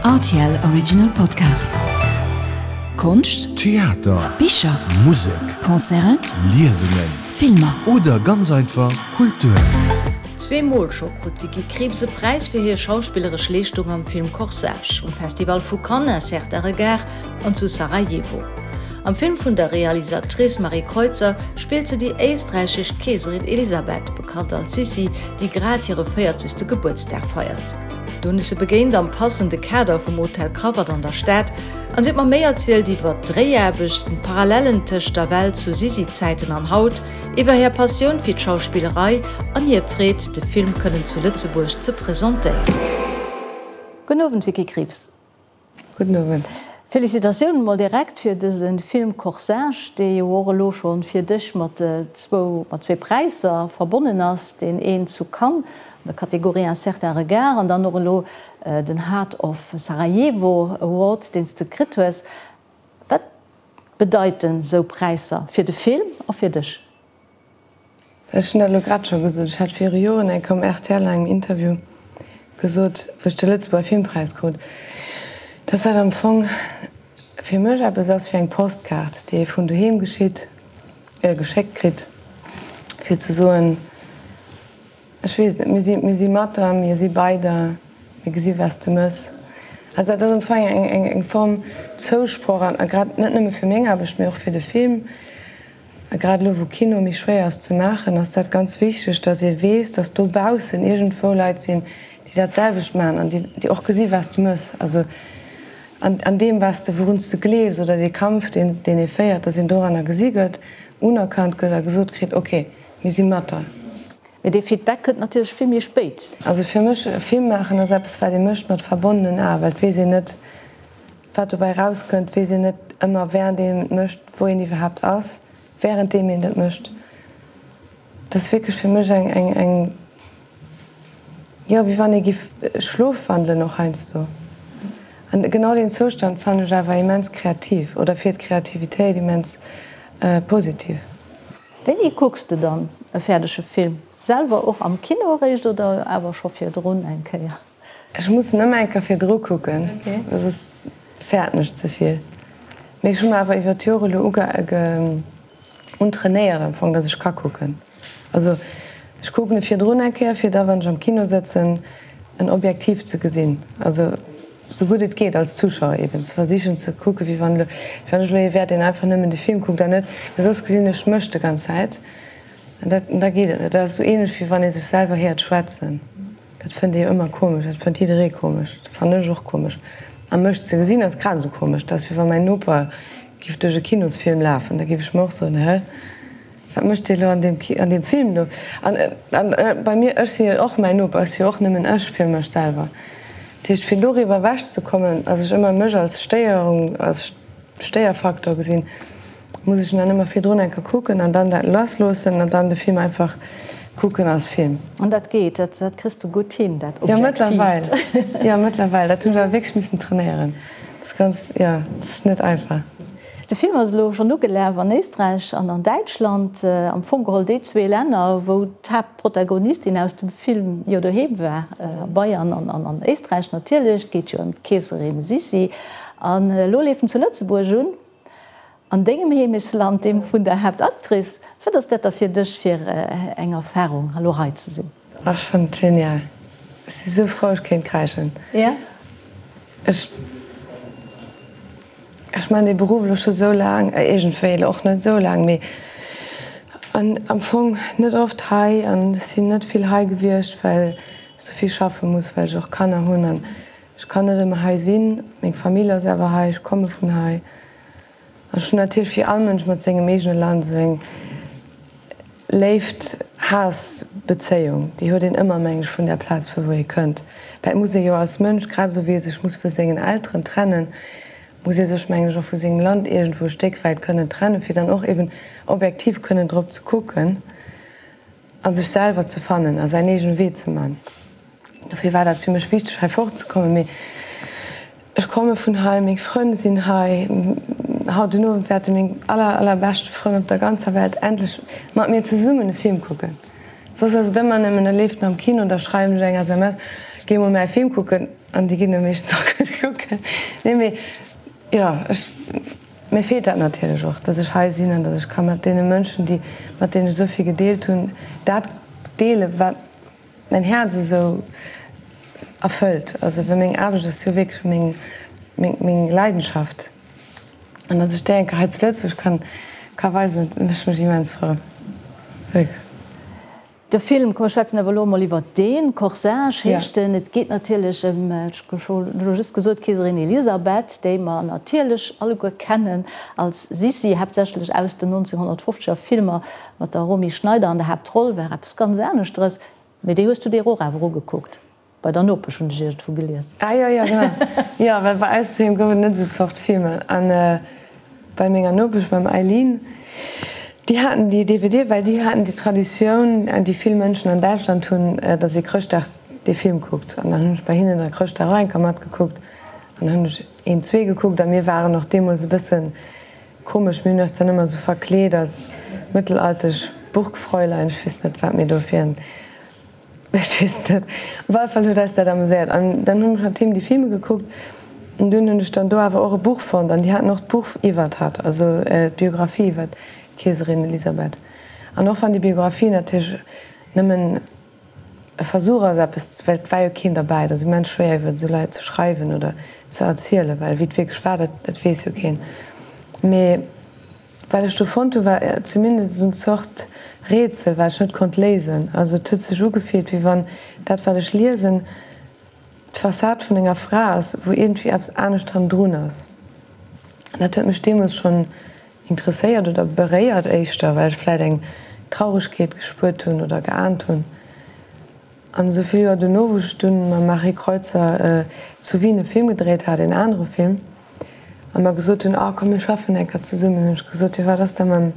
Rtl Original Podcast. Konscht, Theater, Bicher, Musek, Concerten, Liesungen, Filmer. Oder ganz einfach Kultur. Zweemol scho krut d'Vicky Krieps e Präis fir hir schauspilleresch Leeschtung am Film Corsage, um Festival vu Cannes, Un certain regard an zu Sarajevo. Am Film vun der Realisatrice Marie Kreutzer spillt se déi éisträichesch Keeserin Elisabeth, bekannt als Sissi, déi grad hire véierzegste Gebuertsdag feiert. Do hunn ech se begéint am passende Kader vum Hotel Krawatt an der Stad an si huet mer méi erzielt iwwer d'Dréiaarbechten, d'Parallellen tëscht der Welt zu Sissi-Zäiten an haut, iwwer hir Passioun fir d'Schauspillerei an hir Freed, de Film kënnen zu Lëtzebuerg ze presentéieren. Gudden Owend Vicky Krieps. Gudden Owend. Félicitatiounen mol direkt fir dëse Film Corsage, dee jo och elo scho fir dech mat zwou mat zwee Präisser verbonnen ass, deen een zu Cannes an der Kategorie Un certain regard an dann och elo den Heart of Sarajevo Award, deen s de kritt hues. Wat bedeiten sou Präisser fir de Film a fir dech? Ech hunn dat elo grad scho gesot. Ech hat viru Joren eng Kéier um rtl an engem Interview gesot, wou ech de Lëtzebuerger Filmpräis krut, dass dat am Fong fir mech eppes ass wéi eng Postkaart, déi ee vun doheem geschitt, geschéckt kritt, fir ze soen, ech weess net, mir si, mir si mat der, mir si bei der, mir gesi wat s de mëss. Also dat ass am Fong eng, eng, eng Form Zousproch an a grad net nëmme fir meng Aarbecht, mee och fir de Film. A grad elo wou Kino méi schwéier ass ze maachen, ass dat ganz wichteg, datt ee weess, datt dobaussen iergendwou Leit sinn, déi dat selwecht maachen an déi och gesi wat s de mëss. Also an deem wat s de, wourun s de gleefs oder dee Kampf deen deen ee féiert, datt een doranner gesi gëtt, unerkannt gëtt a gesot kritt, ok, mir si mat der. Mee dee Feedback kënnt natierlech vill méi spéit. Also fir mech, e Film maachen ass eppes wat ee mécht mat verbonnenen Aen, well et weess een net, Wat dobäi rauskënnt, weess een net ëmmer wärend een et mécht, wou een iwwerhaapt ass, wärenddeem een dat mécht. Dat ass wierklech fir mech eng, eng, eng, jo, wéi wann ee giff schlofwandelen och heiansdo. An genau deen Zoustand fannen ech awer immens kreativ oder fir d'Kreativitéit immens positiv. Wéini kucks de dann e fäerdege Film? Selwer och am Kino eréischt oder awer scho virdrun eng Kéier? Ech muss en ëmmer eng Kéier virdru kucken, soss fäerten ech ze vill. Mee ech hu mer awer iwwer d'Jore elo untrainéiert am Fong, datt ech ka kucken. Also ech kucken e virdrun eng Kéier, fir da wann ech am Kino sëtzen, en objektiv ze gesinn. Also sou gutt et geet als Zuschauer eben ze versichen ze kucken, wéi wann elo, wéi wann ech elo ee wär, deen einfach nëmmen de Film kuckt an net, well soss gesinn ech mech de ganz Zäit an dat, da geet et net. Dat ass sou ähnlech wéi wann ee sech selwer héiert schwätzen. Dat fënnt ee jo ëmmer komesch, dat fënnt jidderee komesch, dat fannen ech och komesch. A mech ze gesinn ass grad esou komesch. Dat ass wéi wa mäin Noper giff duerch e Kinosfilm lafen, da giff ech mer och soen, Hä, wat mécht dee lo an deem an deem Film do? An bei mir, ech si jo och mäin Noper, ech si jo och nëmmen ech fir mech selwer. Dat heescht, fir doriwwer ewech ze kommen, dass ech ëmmer mech als Stéierung, als Stéierfaktor gesinn, Muss ech en dann ëmmer virdrun eng Kéier kucken an dann dat lassloossen an dann de Film einfach kucken als Film. An dat geet, dat kriss de gutt hin, dat Objektiivt? Jo, mëttlerweil. Jo, mëttlerweil. Dat hunn ech awer wierklech missen trainéieren. Dat ass ganz, jo, dat ass net einfach. De Film ass elo schonn ugelaf an Éisträich an an Däitschland, am Fong geholl déi zwee Länner, wou d'Haaptprotagonistin aus dem Film jo doheem war, a Bayern an an Éisträich natierlech. Et geet jo ëm d'Keeserin Sissi. An elo leeft en zu Lëtzebuerg un. An dengem Heemechtsland, deem vun der Haaptactrice. Wat ass dat da fir dech fir eng Erfarung, elo hei ze sinn? Ach, ech fannen et genial. Ech si sou frou, ech kéint kräischen. Ech, ech maachen dee Beruff elo scho sou laang, iergendwéi elo och net sou laang, mee an am Fong net oft hei an ech sinn net vill hei gewiescht, well ech sou vill schaffe muss, well ech och Kanner hunn an Ech kann net ëmmer hei sinn, meng Famill ass awer hei, ech komme vun hei. An ech hunn natierlech wéi all Mënsch mat sengem eegene Land esou eng Léift-Haass-Bezéiung. Déi huet een ëmmer, meng ech, vun där Plaz vu wou ee kënnt. Well et muss ee jo als Mënsch, grad esou wéi ee sech muss vu sengen Elteren trennen, muss ee sech, meng ech, och vu sengem Land iergendwou e Stéck wäit kënnen trennen, fir dann och eben objektiv kënnen drop ze kucken a sech selwer ze fannen a säin eegene Wee ze man. Dofir war dat fir mech wichteg hei fortzekommen. Mee ech komme vun hei, meng Frënn sinn hei. Haut den Owend wäerte meng aller allerbeschte Frënn op der ganzer Welt endlech mat mir zesummen e Film kucken. Soss ass et ëmmer nëmmen, e leeft am Kino, da schreiwen ech eng SMS, Géi mol mäi Film kucken an déi ginn e meeschtens och gutt kucken. Nee mee jo, ech, mir feelt dat natierlech och, datt ech hei sinn an datt ech ka mat deene Mënschen, déi, mat deenen ech esou vill gedeelt hunn, dat deelen, wat mäin Häerz esou erfëllt. Also well meng Aarbecht ass jo wierklech meng, meng, meng Leidenschaft. An datt ech déi eng Kéier hei zu Lëtzebuerg kann, ka weisen, dat mécht mech immens frou. Wierklech. De Film, komm mir schwätzen awer elo emol iwwert deen, Corsage heescht en. Et geet natierlech ëm, ech hu elo just gesot, d'Keeserin Elisabeth, déi mer natierlech alleguer kennen als Sissi, haaptsächlech aus den 1950er Filmer mat der Romy Schneider an der Haaptroll, war eppes ganz aneschteres. Mee déi hues du dir och awer ugekuckt. Bei der Nopesch hunn ech iergendwou gelies. Ah jo, jo, genau. Jo, well bei eis doheem gouf et net esou Zort Filmer. An bei menger Nopesch, beim Eileen, déi haten déi DVD, well déi haten déi Traditioun, déi vill Mënschen an Däitschland hunn, datt ee Chrëschtdag dee Film kuckt. An dann hunn ech bei hinnen da Chrëschtdag och eng Kéier matgekuckt. An dann hunn ech een, zwee gekuckt. A mir waren och deemools e bësse komesch, mir hunn eis dann ëmmer esou verkleet als mëttelaltesch Burgfräulein, ech weess net, wat mir do fir en Ech weess net. Op alle Fall huet eis dat ameséiert. An dann hunn ech mat him déi Filme gekuckt. An dunn hunn ech dann do awer och e Buch fonnt. An déi haten och d'Buch iwwert hatt, also d'Biographie iwwert d'Keeserin Elisabeth. An och wann déi Biographie natierlech nëmmen e Versuch ass, eppes, well et war jo keen derbäi, et ass immens schwéier iwwert esou Leit ze schreiwen oder ze erzielen, well wéi et wierklech war, dat dat weess jo keen. Mee. Wat ech do fonnt hu war zumindest esou en Zort Rätsel, wat ech net konnt léisen. Also et huet sech ugefillt, wéi wann dat wat ech liesen d'Fassad vun enger Fra ass, wou iergendwéi eppes anescht hannendrun ass. An dat huet mech deemools schonn interesséiert oder beréiert éischter, well ech vläit eng Trauregkeet gespuert hunn oder geaant hunn. An esou vill Joer dono, wou ech dunn mam Marie Kreutzer zu Wien e Film gedréit hat, een anere Film, a mer gesot hunn, oh komm mir schaffen eng Kéier zesummen, hunn ech gesot, jo wat ass da mam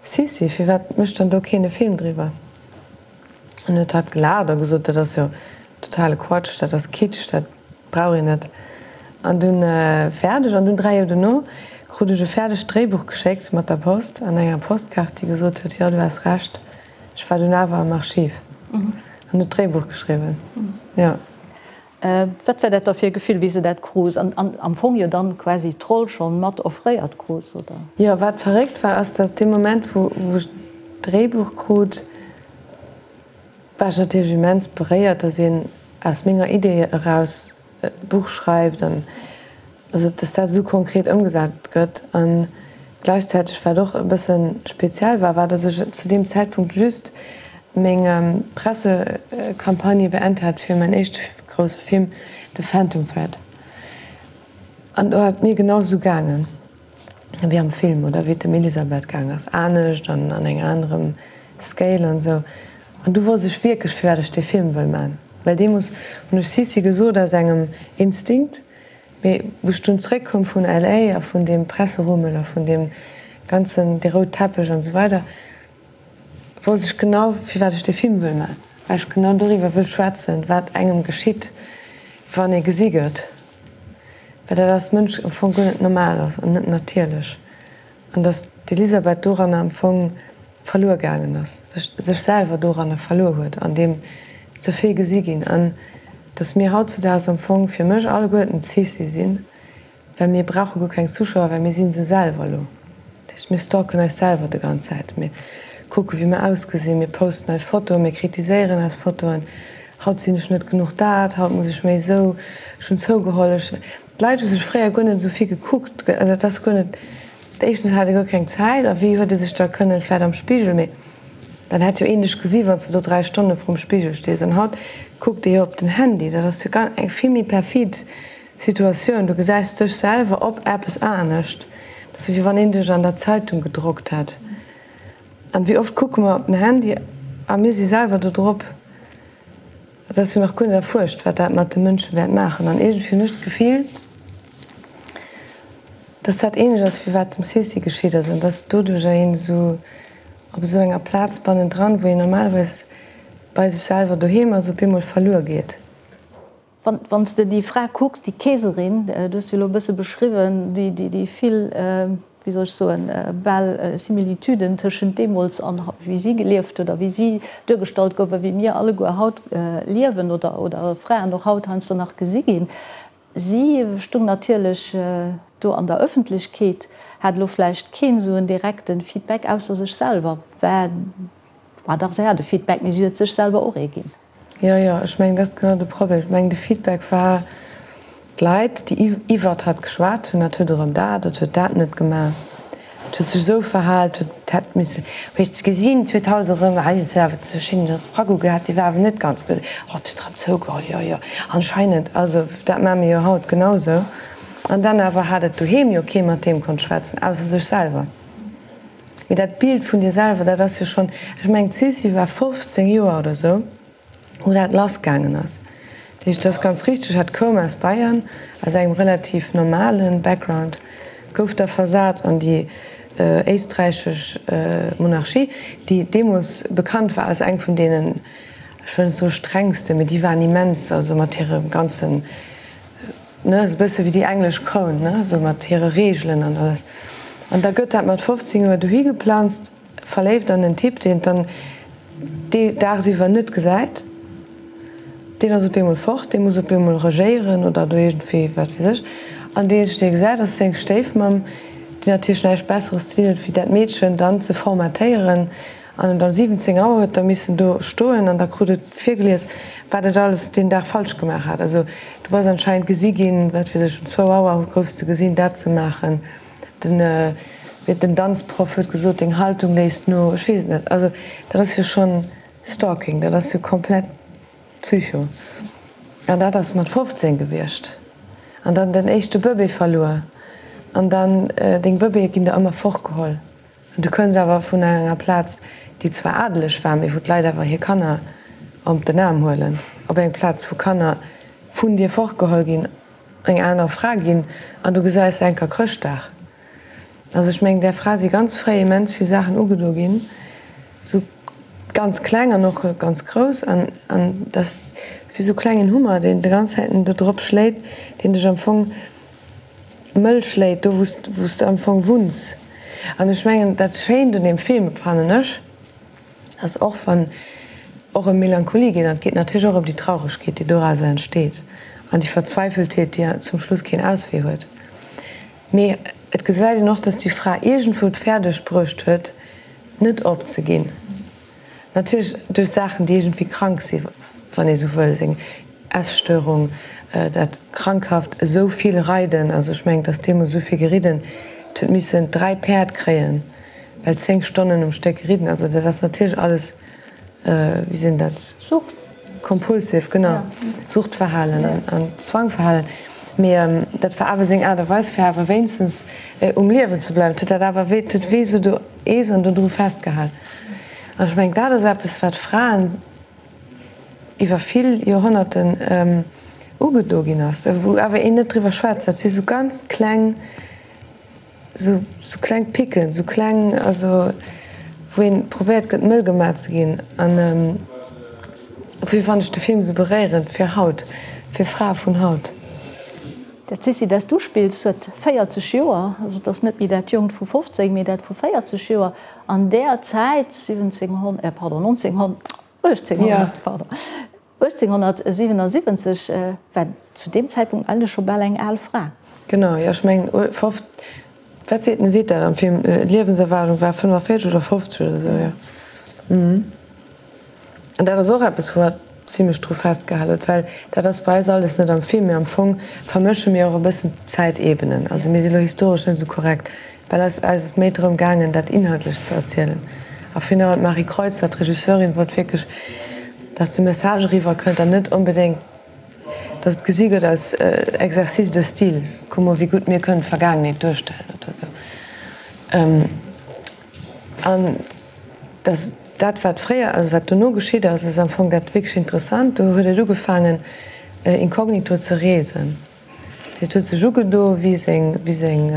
Sissi, firwat mécht dann do keen e Film driwwer? An huet hatt gelaacht a gesot, dat ass jo totale Quatsch, dat ass Kitsch, dat brauch een net. An dunn fäerdeg. An dunn 3 Joer dono krut ech e fäerdegt Dréibuch geschéckt mat der Post an enger Postkaart, déi gesot huet, jo du has Recht. Ech war dunn awer am Archiv an hunn d'Dréibuch geschriwwen, jo. Wat war dat da fir e Gefill, wéi s de dat krus an am Fong jo dann quasi d'Roll schonn mat offréiert krus, oder? Jo, wat verréckt war, ass, datt dee Moment, wou ech d'Dréibuch krut, war ech natierlech immens beréiert, datt een aus menger Idee eraus e Buch schreift an also dass dat esou konkret ëmgesat gëtt. A gläichzäiteg, wat och e bësse speziell war, war, dass ech zu deem Zäitpunkt just meng Pressecampagne beent hat fir mäin éischte grousse Film The Phantom Thread. An do ass et mir genau esou gaangen wéi am Film oder wéi et dem Elisabeth gaang ass, anescht an an engem anerem Scale an esou. An du wosst ech wierklech, firwat ech dee Film wëll man. Well deemools hunn ech Sissi gesot aus engem Instinkt, mee wou ech dunn zréckkoum vun LA a vun deem Presserummel a vun deem ganzen, dee roud Teppech an esou weider, wosst ech genau, firwat ech dee Film wëll man. Well ech genau doriwwer wëll schwätzen, wat engem geschitt, wann ee gesi gëtt. Well dat als Mënsch am Fong guer net normal ass an net natierlech. An datt d'Elisabeth doranner am Fong verluer gaangen ass, sech sech selwer doranner verluer huet, an deem ze vill gesi ginn. An datt mir hautzudaags am Fong fir mech alleguerten d'Sissi sinn, well mir brauche guer keng Zuschauer, well mir si se selwer elo. Dat heescht, mir stalken eis selwer de ganz Zäit. Mir kucke wéi mir ausgesinn, mir posten eis Fotoen, mir kritiséieren eis Fotoen. Haut sinn ech net genuch dat, haut muss ech méi esou, ech hunn zougeholl, ech. D'Leit hu sech fréier guer net esou vill gekuckt, also dat ass guer net, éischtens hat ee guer keng Zäit a wéi huet ee sech da kënnen, vläit am Spigel, mee dann hätt jo een dech gesi wann s de do 3 Stonne vrum Spigel stees. An haut kuckt ee jo op den Handy, dat ass jo eng vill méi perfid Situatioun, du gesäis dech selwer op eppes anescht, dat ass wéi wann een dech an der Zeitung gedrockt hätt. An wéi oft kucke mer op den Handy a mir si selwer do drop. Et ass jo nach guer net erfuerscht, wat dat mat de Mënsche wäert maachen. An iergendwéi hunn ech d'Gefill, dass dat ähnlech ass, wéi wat dem Sissi geschitt ass, an dass doduercher een esou op esou enger Plaz bannendran, wou een normalerweis bei sech selwer doheem ass, op eemol verluer geet. Wann s de déi Fra kucks, déi Keeserin, du hues se elo e bësse beschriwwen, déi vill. wéi soll ech soen, bal Similitüden tëschent deemools an wéi si gelieft huet a wéi si duergestallt gouf a wéi mir alleguer haut liewen oder, oder Fraen och haut heiansdo nach gesi ginn. Si stung natierlech do an der Ëffentlechkeet, hat elo vläicht keen esou en direkte Feedback ausser sech selwer, war, war dach, si hat e Feedback, mee si huet sech selwer och ee ginn. Jo, jo, ech mengen, dat ass genau de Problem. Ech mengen, de Feedback war, d'Leit, déi iwwert hatt geschwat hunn, dat huet erëm dat, dat huet dat net gemaach, dat huet sech esou verhal, dat huet, hätt misse, huet ech gesinn, et huet haut erëm, hei huet awer esou schéine Ragout gehat, dee war awer net ganz gutt, oh, et huet erëm zougeholl, jo, jo, anscheinend, also dat maache mir jo haut genau esou. An dann awer hat et doheem jo kee mat deem konnt schwätzen, ausser sech selwer. Mee dat Bild vun dir selwer, dat ass jo schonn, ech mengen d'Sissi war 15 Joer oder sou, wou dat lass gaangen ass. Dat heescht, et ass ganz richteg, hat koum aus Bayern, aus engem relativ normale Background, gouf da versat an déi éisträichesch Monarchie, déi deemools bekannt war als eng vun deenen, ech wëll net soe strengsten, mee déi waren immens, also mat hirem ganzen, Ne, esou bësse wéi déi englesch Kroun, ne, esou mat hire Reegelen an alles. An da gëtt dat mat 15 Joer dohi geplanzt, verléift an en Typ, deen et dann dee daagsiwwer net gesäit. Deen ass op eemol fort, dee muss op eemol regéieren oder do iergendwéi, wat weess ech. An deen eenzegen, dee gesäit, ass seng Stéifmamm, déi natierlech näischt Besseres ze dinn huet, wéi dat Meedchen dann ze formatéieren An um 17 Auer huet da missen do stoen an da krut et virgelies, wat et alles deen Dag falsch gemaach hat. Also du bass anscheinend gesi ginn, wat weess ech, um zwou Auer goufs de gesinn, dat ze maachen. Den, den Danzproff huet gesot, deng Haltung léisst no. Ech weess et net. Also dat ass jo schonn Stalking, dat ass jo komplett Psycho. An dat ass mat 15 gewiescht. An dann den éischte Bëbee verluer. An dann, deng Bëbeeë ginn der ëmmer fortgeholl. Du kënns awer vun enger Plaz, déi zwar adeleg war, mee wou d'Leit awer hir Kanner op den Aarm huelen, op eng Plaz, wou Kanner vun dir fortgeholl ginn, eng aner Fra ginn an du gesäis se eng Kéier Chrëschtdag. Also ech mengen, där Fra si ganz fréi immens vill Saachen ugedo ginn, sou ganz kleng an och ganz grouss an an dat ass wéi sou klengen Hummer, deen de ganz Zäiten do drop schléit, deen dech am Fong mëll schléit, do wou s de am Fong wunns. An ech mengen, dat Schéint un deem Film, fannen ech, ass och wann och ëm Melancholie geet, an et geet natierlech och ëm déi Trauregkeet, déi dorauser entsteet, an déi Verzweifeltheet, déi zum Schluss keen Auswee huet, mee et gesäit een och, dass déi Fra iergendwou et fäerdeg bruecht huet, net opzeginn. Natierlech duerch Saachen, déi iergendwéi krank sinn, wann ee sou wëll, seng Esstörung, dat krankhaft esou vill Reiden, also ech mengen, et ass deemools esou vill geridden, et huet missen 3 Päerd kréien, well 10 Stonnen um Stéck ridden, also dat ass natierlech alles, wéi sinn dat? Sucht. Compulsive, genau, Suchtverhalen an Zwangverhalen, mee dat war awer seng Aart a Weis, fir awer wéinstens um Liewen ze bleiwen. Et huet dat awer wéi, et huet wéi esou do Eesen dodru festgehal. An ech mengen, dat ass eppes, wat Fraen iwwer vill Joerhonnerten ugedo ginn ass, wou awer een net driwwer schwätzt. Dat si sou ganz kleng, sou kleng Picken, sou kleng, also wou een probéiert gëtt, mëll gemaach ze ginn. An dofir fannen ech de Film esou beréierend fir haut, fir Frae vun haut. Dat Sissi, dat s du spills, huet 40 Joer, also et ass net méi dat Jonkt vu 15, mee dat vu 40 Joer. An där Zäit, 1700, pardon, 1900, 1800, pardon, 1877, war zu deem Zäitpunkt eigentlech scho bal eng al Fra. Genau, jo, ech mengen, wat seet en, seet dat am Film, d'Liewenserwaardung war 45 oder 50 oder esou, jo. An dat ass och eppes, wou hatt zimlech dru festgehal huet, well dat ass bei eis alles net am Film, mee am Fong vermësche mir och e bëssen d'Zäitebenen. Also mir si lo historesch net esou korrekt, well eis ass et méi drëm gaangen, dat inhaltlech ze erzielen. A finalement, d'Marie Kreutzer, d'Regisseurin, wollt wierklech, dass de Message eriwwer kënnt an net onbedéngt, dass et gesi gëtt als Exercice de style, kuck mol, wéi gutt mir kënnen d'Vergaangenheet duerstellen oder esou. An dass dat, wat fréier, also wat dono geschitt ass, ass am Fong dat wierklech Interessant. Do huet et ugefaangen, inkognito ze reesen. Dat huet sech ugedo wéi seng, wéi seng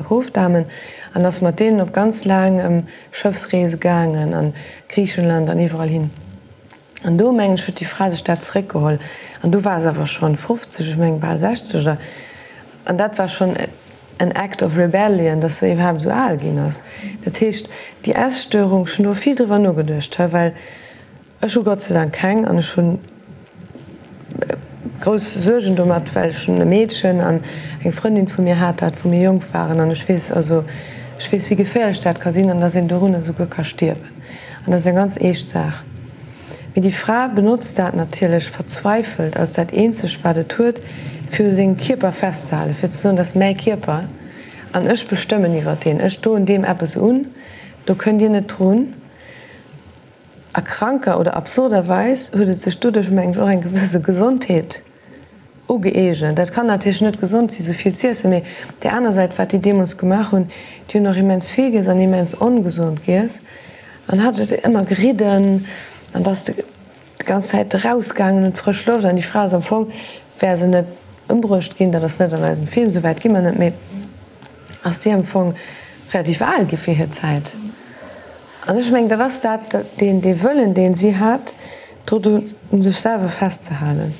Hofdamen an ass mat deenen op ganz laang Schëffsreese gaangen an Griichenland an iwwerall hin. An do, mengen ech, huet déi Fra sech dat zeréckgeholl. An do war se awer schonn 50, ech mengen bal 60 oder, an dat war schonn. en Act of Rebellion, dass se iwwerhaapt esou al ginn ass. Dat heescht, déi Esstörung, ech hunn do vill driwwer nogeduecht, he, well ech hu Gott sei Dank keng an ech hunn grouss Suergen domat, well ech hunn e Meedchen an eng Frëndin vu mir hat dat, wou mir jonk waren an ech weess, also ech weess, wéi geféierlech dat ka sinn an dass een dorunner esouguer ka stierwen an dat ass eng ganz eescht Saach. Mee déi Fra benotzt dat natierlech verzweifelt als dat eenzegt, wat et huet, fir u sengem Kierper festzehalen, fir ze soen, dat ass mäi Kierper an ech bestëmmen iwwer deen, ech doen deem eppes un, do kënnt Dir net drun. A kranker oder absurderweis huet et sech doduerch, mengen ech, och eng gewësse Gesondheet ugëeegent. Dat kann natierlech net gesond si sou vill z'iessen, mee op där aner Säit, wat déi deemools gemaach hunn, déi hunn och immens vill giess an immens ongesond giess an hat et ëmmer geridden an da ass de déi ganz Zäit erausgaangen un d'frësch Loft an déi Fra ass am Fong, wär se net ëmbruecht ginn, dat ass net an eisem Film, sou wäit gi mer net, mee ass déi am Fong relativ al gi fir hir Zäit. An ech mengen, dat ass dat, deen, dee Wëllen, deen si hat, do un sech selwer festzehalen.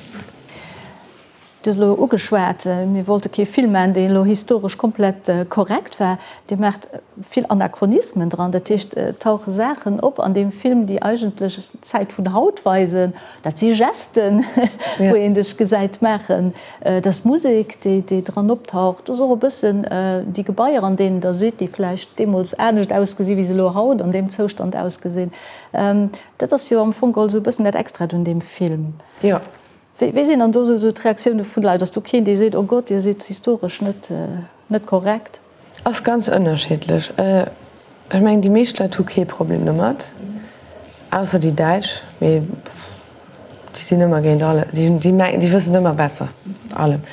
Du hues elo ugeschwat, mir wollte kee Film maachen, deen elo historesch komplett korrekt war. Dir maacht vill Anachronismen dran, dat heescht, et tauche Saachen op an deem Film, déi eigentlech d'Zäit vun haut weisen. Dat si Gesten, wou een dech gesäit maachen. Et ass d'Musek, déi dran optaucht. Et ass och e bëssen déi Gebaier, an deenen Der sidd, déi vläicht deemools anescht ausgesi wéi se elo haut an deem Zoustand ausgesinn. Dat ass jo am Fong geholl esou e bëssen dat Extrat un deem Film. Jo. Wéi sinn dann do esou d'Reaktioune vun de Leit? Ass do keen, dee seet, Oh Gott, Dir sidd historesch net korrekt? Ass ganz ënnerschiddlech. Ech mengen déi meescht Leit hu kee Problem domat, ausser déi Däitsch, mee déi sinn ëmmer géint alle, déi hunn, déi mengen, déi wëssen ëmmer besser allem.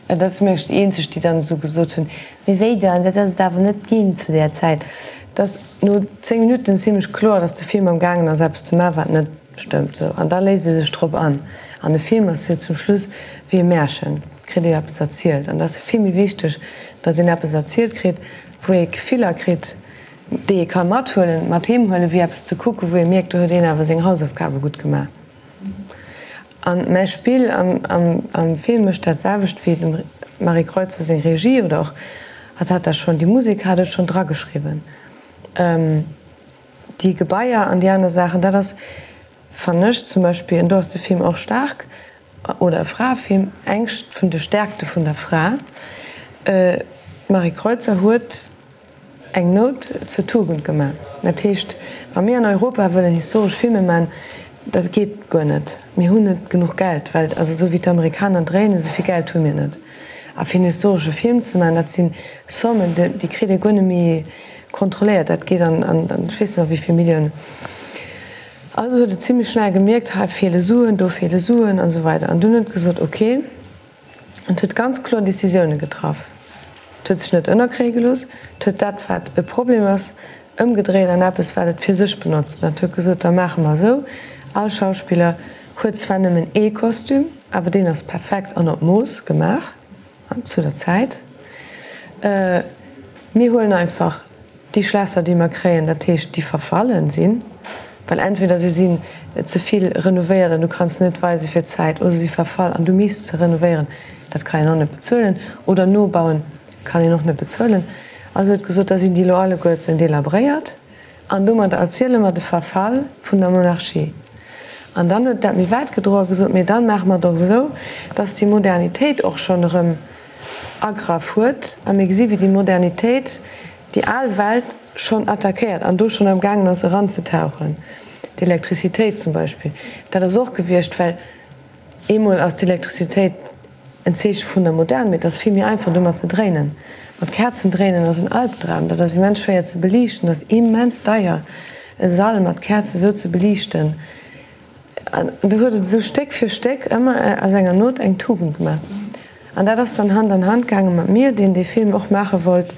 Dat ass mengen ech déi eenzeg, déi dann esou gesot hunn, mee wéi dann, dat ass et awer net ginn zu där Zäit. Et ass no 10 Minutten zimlech kloer, datt de Film am gaangen ass eppes ze maachen, wat net stëmmt. Sou, an da léisst ee sech drop an. An e Film ass jo zum Schluss wéi e Märchen, kritt ee jo eppes erzielt. An dat ass jo vill méi wichteg, datt een eppes erzielt kritt, wou ee Gefiller kritt, déi ee ka mathuelen, mat heem huelen, wéi eppes ze kucken, wou ee mierkt, do huet een awer seng Hausaufgabe gutt gemaach. An mäi Spill am Film mécht dat selwecht wéi dem Marie Kreutzer seng Regie, oder och hatt hat dat schonn, déi Musek hat et schonn drageschriwwen, déi Gebaier an déi aner Saachen, dat ass, fannen ech zum Beispill, an do ass de Film och staark, oder e Fraefilm, eng vun de Stärkte vun der Fra. D'Marie Kreutzer huet eng Nout zur Tugend gemaach. Dat heescht, wa mir an Europa wëllen historesch Filme man, dat geet guer net. Mir hunn net genuch Geld, well also esou wéi d'Amerikaner dréinen, esou vill Geld hu mir net. A fir en historesche Film ze man, dat si Sommen, déi kritt ee guer net méi kontrolléiert. Dat geet an, ech weess net a wéi vill Milliounen. Also huet et zimlech schnell gemierkt, hei feele Suen, do feele Suen an esou weider. An dunn huet et gesot, ok, an et huet ganz kloer Décisioune getraff. Et huet sech net ënnerkréie gelooss, et huet dat, wat e Problem ass, ëmgedréit an eppes, wat et fir sech benotzt. An et huet gesot, da maache mer esou, all Schauspiller huet zwar nëmmen ee Kostüm, awer deen ass perfekt an op Mooss gemaach zu der Zäit. Mir huelen einfach Déi Schlässer, déi mer kréien, dat heescht, déi verfallen sinn, well entweder se sinn ze vill renovéiert an du kanns se net weise fir d'Zäit, oder se si verfall an du misst se renovéieren, dat kann een och net bezuelen, oder nobauen kann een och net bezuelen. Also huet gesot, da sinn déi elo alleguerten delabréiert an domadder erziele mer de Verfall vun der Monarchie. An dann huet dat méi wäit gedroen a gesot, mee dann maache mer et och esou, dass déi Modernitéit och schonn erëm agraff huet a mir gesi wéi déi Modernitéit déi al Welt schonn attackéiert an do schonn am gaangen ass eranzetauchen. D'Elektrizitéit zum Beispill, dat ass och gewiescht, well eemol ass d'Elektrizitéit en Zeeche vun der Modern, mee et ass vill méi einfach domat ze dréinen. Mat Käerzen dréinen ass en Albdram, dat ass immens schwéier ze beliichten, dat ass immens deier e Sall mat Käerze sou ze beliichten. An du huet et esou Stéck fir Stéck ëmmer aus enger Not eng Tugend gemaach. An dat ass dann Hand an Hand gaange mat mir, deen dee Film och maache wollt,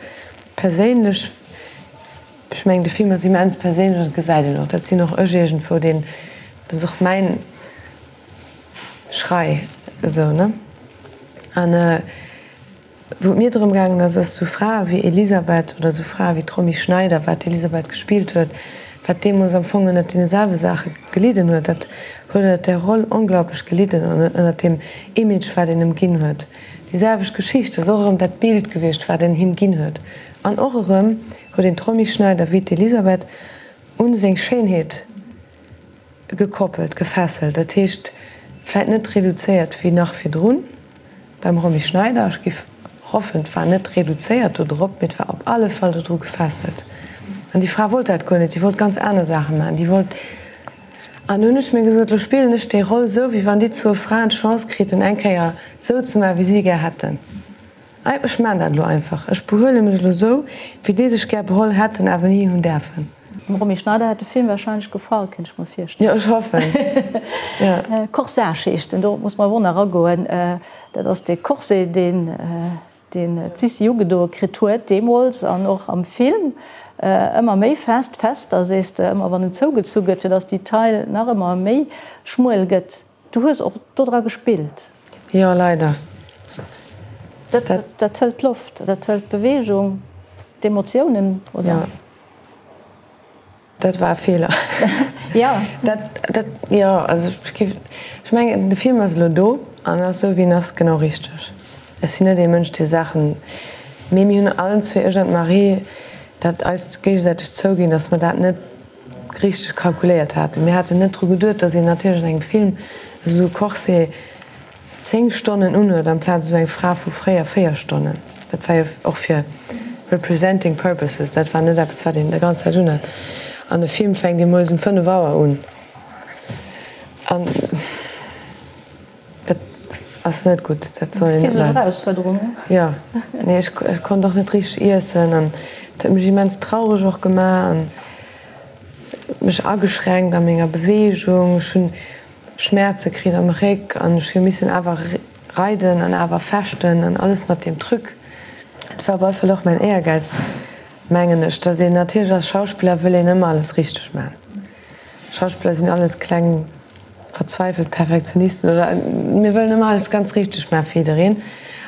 perséinlech. Ech mengen, de Film ass immens perséinlech an dat gesäit een och. Dat sinn och ech iergendwou, deen, dat ass och mäin Schrei esou, ne? An. Wou et mir drëm gaangen ass, ass esou Frae wéi Elisabeth oder esou Frae wéi d'Romy Schneider, wat d'Elisabeth gespillt huet, wat deemools am Fong ënnert deene selwe Saache gelidden huet, dat huet ënnert där Roll onglaublech gelidden an ënnert deem Image, wat een em ginn huet. Déi selwecht Geschicht ass och erëm dat Bild gewiescht, wat en him ginn huet. An och erëm huet een d'Romy Schneider wéi d'Elisabeth un seng Schéinheet gekoppelt, gefesselt. Dat heescht, vläit net reduzéiert wéi nach virdrun beim Romy Schneider, ech giff hoffen, et war net reduzéiert do drop, mee et war op alle Fall dodru gefesselt. An déi Fra wollt dat guer net, déi wollt ganz aner Saache maachen, déi wollt. An du hunn ech mir gesot, lo spillen ech déi Roll esou, wéi wann déi zwou Fraen d'Chance kriten, eng Kéier esou ze maachen, wéi si gär hätten. Ech maan dat elo einfach. Ech behuele mech elo esou, wéi déi sech gär beholl hätten, awer ni hunn däerfen. Dem Romy Schneider hätt de Film wahrscheinlech gefall, kéint ech mer virstellen. Jo, ech hoffen, jo. Corsage heescht en, dorop muss mer awer och nach agoen. Dat ass dee Corset, deen deen d'Sissi ugedoe kritt huet deemools an och am Film ëmmer méi fest, fester sees de, ëmmer wann en zougezu gëtt, fir datt déi Taille nach ëmmer méi schmuel gëtt. Du hues och dodra gespillt. Jo, leider. Dat, dat hëlt d'Loft, dat hëlt d'Beweegung, d'Emotiounen, oder? Jo. Dat war e Feeler. Jo. Dat, dat, jo, also ech géif, ech mengen, de Film ass elo do an ass esou wéi en ass genau richteg. Ech sinn net ee Mënsch dee Saachen, mee mir hunn allen zwee, ech an d'Marie, dat eis géigesäiteg zouginn, datt mer dat net richteg kalkuléiert haten. Mir haten net dru geduet, datt een natierlech an engem Film esou e Corset 10 Stonnen unhuet amplaz esou eng Fra vu fréier 4 Stonnen. Dat war jo och fir representing purposes, dat war net eppes wat een der ganz Zäit unhat. An e Film fänkt ee moies um 5 Auer un an dat ass net gutt, dat soll een net maachen. Physesch Erausfuerderung, ne? Jo, nee ech konnt och net richteg iessen an et huet mech immens traureg och gemaach an mech ageschränkt a menger Beweegung. Ech hunn Schmäerze kritt am Réck an ech hu missen awer reiden an awer fechten an alles mat deem Truc. Et war op alle Fall och mäin Éiergäiz, mengen ech, dass een natierlech als Schauspiller wëll een ëmmer alles richteg maachen. Schauspiller sinn alles kleng verzweifelt Perfektionisten oder mir wëllen ëmmer alles ganz richteg maachen fir jiddereen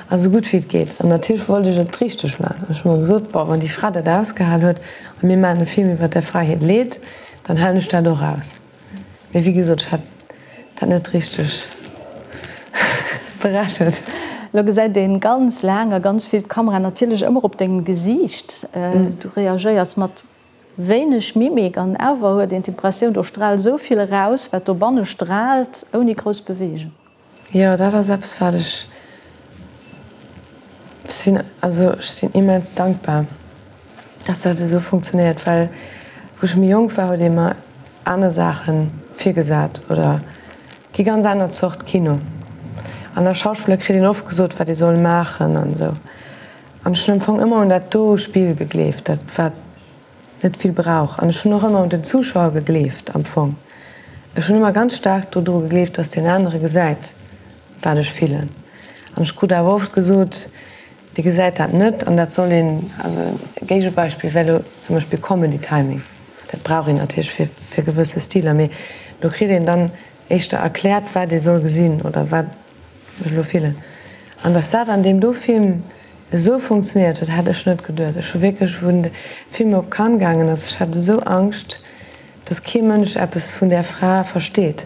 a sou gutt wéi et geet. An natierlech wollt ech et richteg maachen an ech hu mer gesot, bon, wann déi Fra dat ausgehal huet a mir maachen e Film iwwer där Fra hiert Leed, dann halen ech dat och aus. Mee wéi gesot, ech hat dat net richteg berechent. Lo gesäit een ganz laang a ganz vill d'Kamera natierlech ëmmer op dengem Gesiicht. Du reagéiers mat wéineg Mimik an awer huet een d'Impressioun, do straalt esou vill eraus, wat dobanne straalt, ouni grouss Beweegung. Jo, dat ass eppes wat ech sinn, also ech sinn immens dankbar, dass dat esou funktionéiert, well wou ech méi jonk war, huet ee mer aner Saache virgesat oder déi ganz aner Zort Kino. An als Schauspiller kritt een oft gesot, wat ee soll maachen an esou. An ech hunn am Fong ëmmer un dat do Spill gegleeft, dat wat net vill brauch. An ech hunn och ëmmer un den Zuschauer gegleeft am Fong. Ech hunn ëmmer ganz staark dodru gegleeft, datt deen anere gesäit, wat ech fillen. An ech krut awer oft gesot, dee gesäit dat net an dat soll een, also e Géigebeispill wär elo zum Beispill Comedy Timing, dat brauch een natierlech fir fir gewësse Stiler, mee do kritt een dann éischter erkläert, wat ee soll gesinn oder wat ech elo fillen. An datt dat an deem do Film esou funktionéiert huet, hat ech net geduet. Ech hu wierklech, wou de Film op Cannes gaangen ass, ech hat esou Angscht, datt kee Mënsch eppes vun där Fra versteet,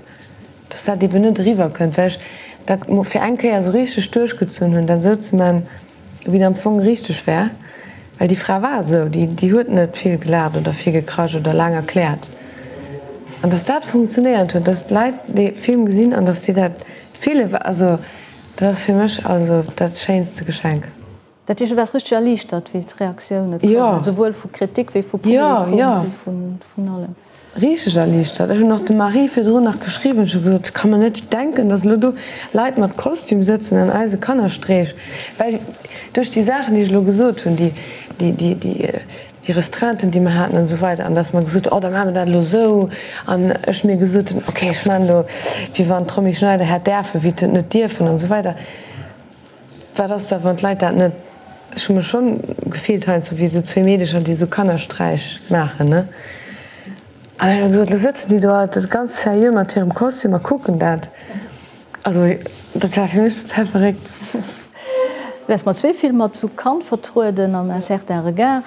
datt dat eben net eriwwer kënnt, well ech dat fir eng Kéier esou richteg duerchgezunn hunn, dat esou ze man, wéi et am Fong richteg wär. Well déi Fra war esou, déi, déi huet net vill gelaacht oder vill gekrasch oder laang erkläert. An datt dat funktionéiert huet, datt d'Leit dee Film gesinn an datt si dat fillen, also dat ass fir mech also dat schéinste Geschenk. Dat heescht, du waars richteg erliichtert, wéi d'Reaktioune koumen, souwuel vu Kritik wéi vu Publikum, wéi vun allem? Richteg erliichtert. Ech hunn och dem Marie virdrun nach geschriwwen, ech hu gesot, ech ka mer net denken, datt elo do Leit mat Kostüm sëtzen an eise Kannerstreech, well duerch déi Saachen, déi ech elo gesot hunn, déi, déi, déi, déi, déi Restreinten, déi mer haten an esou weider, an datt mer gesot hunn, oh da maache mer dat elo esou, an ech mir gesot hunn, okay, ech maachen elo, wéi wann d'Romy Schneider hätt däerfen, wéi et net dierfen an esou weider. Wat ass da wann d'Leit dat net, ech hu mech schonn gefillt heiansdo wéi esou zwéi Meedecher déi esou Kannersträich maachen ne, an ech hu gesot, lo sëtzen déi do alt ganz seriö mat hirem Kostüm a kucken dat, also dat war fir mech total verréckt. Du waars mat zwee Filmer zu Cannes vertrueden am Un certain regard.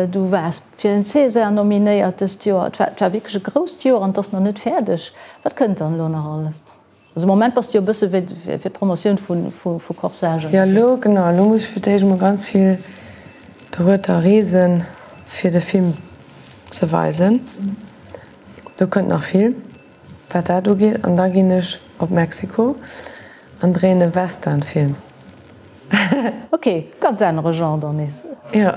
Du waars fir en César nominéiert dëst Joer. Et war wierklech e grousst Joer an et ass nach net fäerdeg. Wat kënnt dann elo nach alles? Also am Moment bass de jo e bësse fir d'Promotioun vu Corsage ënnerwee. Jo, elo, genau, elo muss ech fir d'éischt emol ganz vill dorueter reesen, fir de Film ze weisen. Do kënnt nach vill, wat dat ugeet. An da ginn ech op Mexiko an dréien e Westernfilm. Ok, ganz anere Genre dann nees. Jo.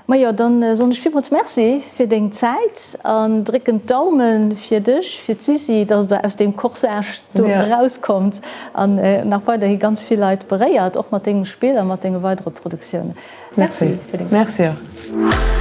Majo, dann soen ech villmools Merci fir deng Zäit an drécken d'Daumen fir dech, fir d'Sisi, dass der aus deem Corsage do erauskommt an nach weiderhi ganz vill Leit beréiert, och mat dengem Spill a mat denge weidere Produktiounen. Merci fir deng Zäit. Merci och.